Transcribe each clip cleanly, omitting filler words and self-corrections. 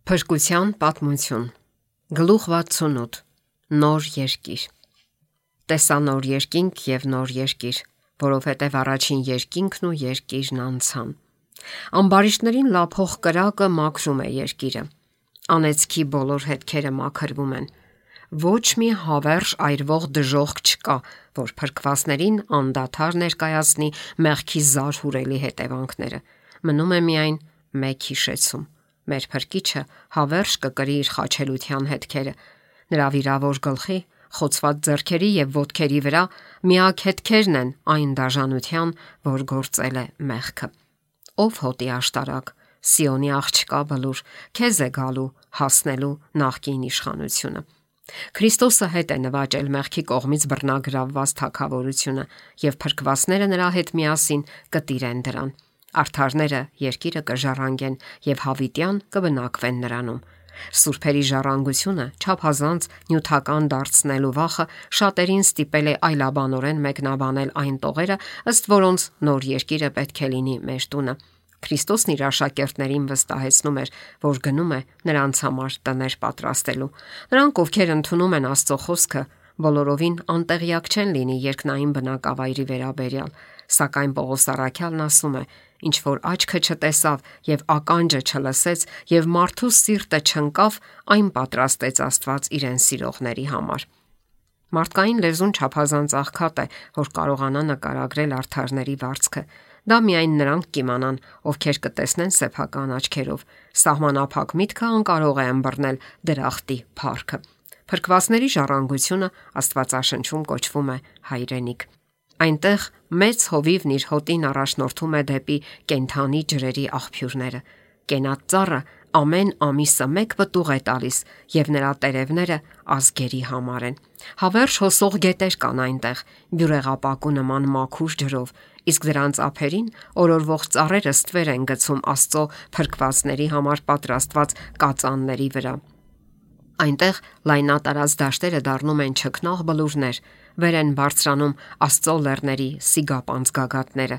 Փրկության պատմություն։ Գլուխ 68։ Նոր երկիր։ Տեսա նոր երկինք եւ նոր երկիր, որովհետեւ առաջին երկինքն ու երկիրն անցան։ Ամբարիշտներին լափող կրակը մաքրում է երկիրը։ Անեծքի բոլոր հետքերը մաքրվում են։ Ոչ մի հավերժ այրվող դժոխք չկա, որ փրկվածներին անդադար ներկայացնի մեղքի զարհուրելի հետևանքները։ Մնում է միայն մեկ հիշեցում. մեր Փրկիչը հավերժ կկրի իր խաչելության հետքերը։ Նրա վիրավոր գլխի, խոցված ձեռքերի եւ ոտքերի վրա միակ հետքերն են այն դաժանության, որ գործել է մեղքը։ Ով հոտի աշտարակ, Սիոնի աղջկա բլուր, քեզ է գալու հասնելու նախկին իշխանությունը։ Քրիստոսը հետ է նվաճել մեղքի կողմից բռնագրավված թագավորությունը, եւ փրկվածները նրա հետ միասին կտիրեն դրան։ Արդարները երկիրը կժառանգեն եւ հավիտյան կբնակվեն նրանում։ Սուրբերի ժառանգությունը չափազանց նյութական դարձնելու վախը շատերին ստիպել է այլաբանորեն մեկնաբանել այն տողերը, ըստ որոնց նոր երկիրը պետք է լինի մեր տունը։ Քրիստոսն իր աշակերտներին վստահեցնում էր, որ գնում է նրանց համար տներ պատրաստելու։ Նրանք, ովքեր ընդունում են Աստծո խոսքը, բոլորովին անտեղյակ չեն լինի երկնային բնակավայրի վերաբերյալ, սակայն Պողոս առաքյալն ասում է. ինչ որ աչքը չտեսավ եւ ականջը չլսեց եւ մարդու սիրտը չընկավ, այն պատրաստեց Աստված իրեն սիրողների համար։ Մարդկային լեզուն չափազանց աղքատ է, որ կարողանա նկարագրել արդարների վարձքը։ Դա միայն նրանք կիմանան, ովքեր կտեսնեն սեփական աչքերով։ Սահմանափակ միտքը անկարող է ըմբռնել դրախտի փառքը։ Փրկվածների ժառանգությունը Աստվածաշնչում կոչվում է հայրենիք։ Այնտեղ մեծ հովիվն իր հոտին առաջնորդում է դեպի կենթանի ջրերի աղբյուրները։ Կենատ ծառը ամեն ամիսը մեկ պտուղ է տալիս եւ նրա տերևները ազգերի համար են։ Հավերժ հոսող գետեր կան այնտեղ, բյուրեղապակու նման մաքուր ջրով, իսկ դրանց ափերին օրորվող ծառերը ստվեր են գցում Աստծո փրկվածների համար պատրաստված կածանների վրա։ Այնտեղ լայնատարած դաշտերը դառնում են չքնաղ բլուրներ, վեր են բարձրանում Աստծո լեռների սիգապանց գագաթները։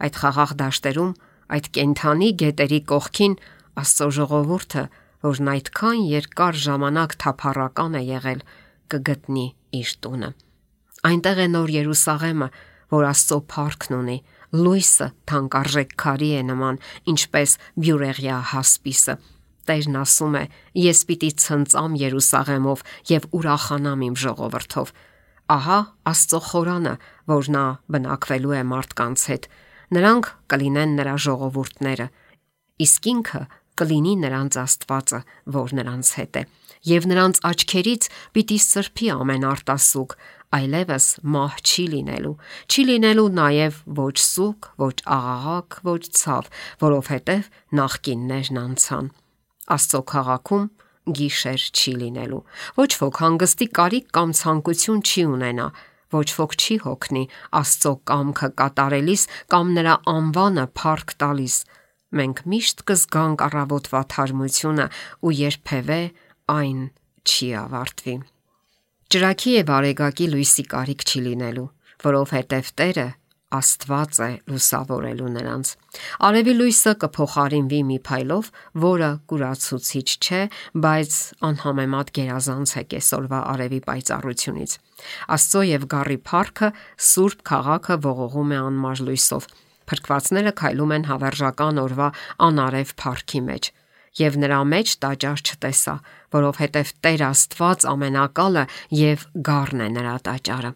Այդ խաղաղ դաշտերում, այդ կենթանի գետերի կողքին Աստծո ժողովուրդը, որն այդքան երկար ժամանակ թափառական է եղել, կգտնի իր տունը։ Այնտեղ է նոր Երուսաղեմը, որ Աստծո փառքն ունի, լույսը թանկարժեք քարի է նման, ինչպես բյուրեղյա հասպիսը։ Տերն ասում է. ես պիտի ցնծամ Երուսաղեմով եւ ուրախանամ իմ ժողովրդով։ Ահա Աստծո խորանը, որ նա բնակվելու է մարդկանց հետ։ Նրանք կլինեն նրա ժողովուրդները, իսկ ինքը կլինի նրանց Աստվածը, որ նրանց հետ է։ Եվ նրանց աչքերից պիտի սրբի ամեն արտասուք, այլևս մահ չի լինելու նաև ոչ սուգ, ոչ աղաղակ, ոչ ցավ, որովհետև նախկիններն անցան։ Աստծո քաղաքում գիշեր չի լինելու։ Ոչ ոք հանգստի կարիք կամ ցանկություն չի ունենա, ոչ ոք չի հոգնի Աստծո կամքը կատարելիս կամ նրա անվանը փառք տալիս։ Մենք միշտ կզգանք առավոտվա թարմությունը ու երբևէ այն չի ավարտվի։ Ճրագի եւ արեգակի լույսի կարիք չի լինելու, որովհետև Տերը Աստված է լուսավորելու նրանց։ Արևի լույսը կփոխարինվի մի փայլով, որը կուրացուցիչ չէ, բայց անհամեմատ գերազանց է կեսօրվա արևի պայծառությունից։ Աստծո եւ գառի փառքը Սուրբ քաղաքը ողողում է անմար լույսով։ Փրկվածները քայլում են հավերժական օրվա անարև փառքի մեջ։ Եվ նրա մեջ տաճար չտեսա, որովհետև Տեր Աստված ամենակալը եւ գառն է նրա տաճարը։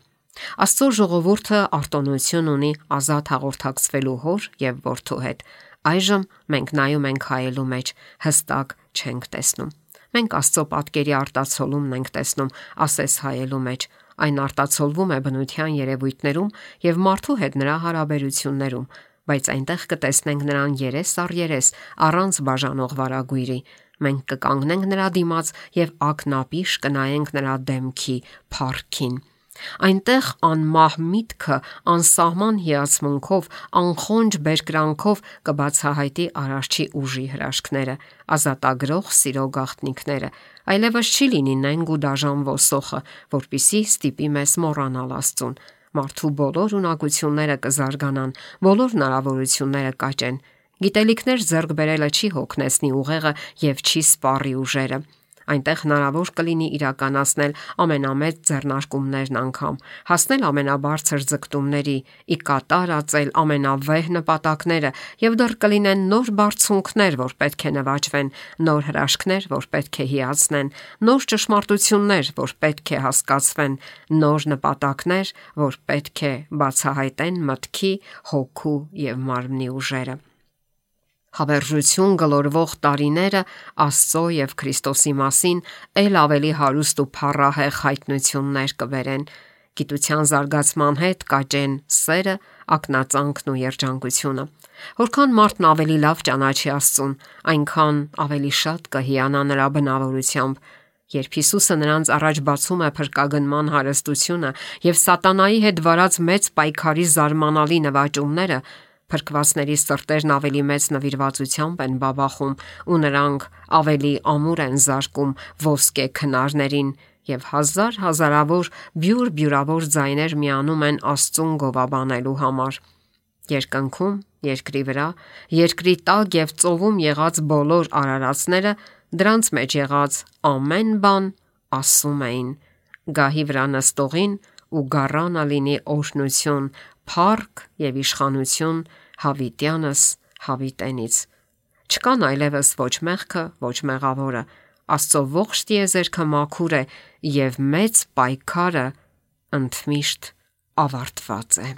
Աստծո ժողովուրդը արտոնություն ունի ազատ հաղորդակցվելու հոր եւ որդու հետ։ Այժմ մենք նայում ենք հայելու մեջ, հստակ չենք տեսնում։ Մենք Աստծո պատկերի արտացոլումն ենք տեսնում ասես հայելու մեջ։ Այն արտացոլվում է բնության երևույթներում եւ մարդու հետ նրա հարաբերություններում, բայց այնտեղ կտեսնենք նրան երես առ երես, առանց բաժանող վարագույրի։ Մենք կկանգնենք նրա դիմաց եւ ակնապիշ կնայենք նրա դեմքի փառքին։ Այնտեղ անմահ միտքը անսահման հիացմունքով, անխոնջ բերկրանքով կբացահայտի Արարչի ուժի հրաշքները, ազատագրող սիրո գաղտնիքները։ Այլևս չի լինի նենգ ու դաժան ոսոխը, որպիսի ստիպի մեզ մոռանալ Աստծուն։ Մարդու բոլոր ունակությունները կզարգանան, բոլոր հնարավորությունները կաճեն։ Գիտելիքներ ձեռք բերելը չի հոգնեցնի ուղեղը եւ չի սպառի ուժերը։ Այնտեղ հնարավոր կլինի իրականացնել ամենամեծ ձեռնարկումներն անգամ, հասնել ամենաբարձր ձգտումների, ի կատար ածել ամենավեհ նպատակները եւ դեռ կլինեն նոր բարձունքներ, որ պետք է նվաճվեն, նոր հրաշքներ, որ պետք է հիացնեն, նոր ճշմարտություններ, որ պետք է հասկացվեն, նոր նպատակներ, որ պետք է բացահայտեն մտքի, հոգու եւ մարմնի ուժերը։ Հավերժություն գլորվող տարիները Աստծո եւ Քրիստոսի մասին ել ավելի հարուստ ու փառահեղ հայտնություններ կբերեն։ Գիտության զարգացման հետ կաճեն սերը, ակնածանքն ու երջանկությունը։ Որքան մարդն ավելի լավ ճանաչի Աստծուն, այնքան ավելի շատ կհիանա նրա բնավորությամբ։ Երբ Հիսուսը նրանց առաջ բացում է փրկագնման հարստությունը եւ սատանայի հետ վարած մեծ պայքարի զարմանալի նվաճումները, փրկվածների սրտերն ավելի մեծ նվիրվածությամբ են բաբախում ու նրանք ավելի ամուր են զարկում ոսկե քնարներին եւ հազարավոր բյուրավոր ձայներ միանում են Աստծուն գովաբանելու համար։ Երկնքում, երկրի վրա, երկրի տակ եւ ծովում եղած բոլոր արարածները դրանց մեջ եղած ամեն բան ասում էին. «Գահի վրա նստողին ու գառանը լինի օրհնություն, փառք եւ իշխանություն հավիտյանս հավիտենից»։ Չկան այլևս ոչ մեղքը, ոչ մեղավորը։ Աստծո ողջ տիեզերքը մաքուր է եւ մեծ պայքարը ընդմիշտ ավարտված է։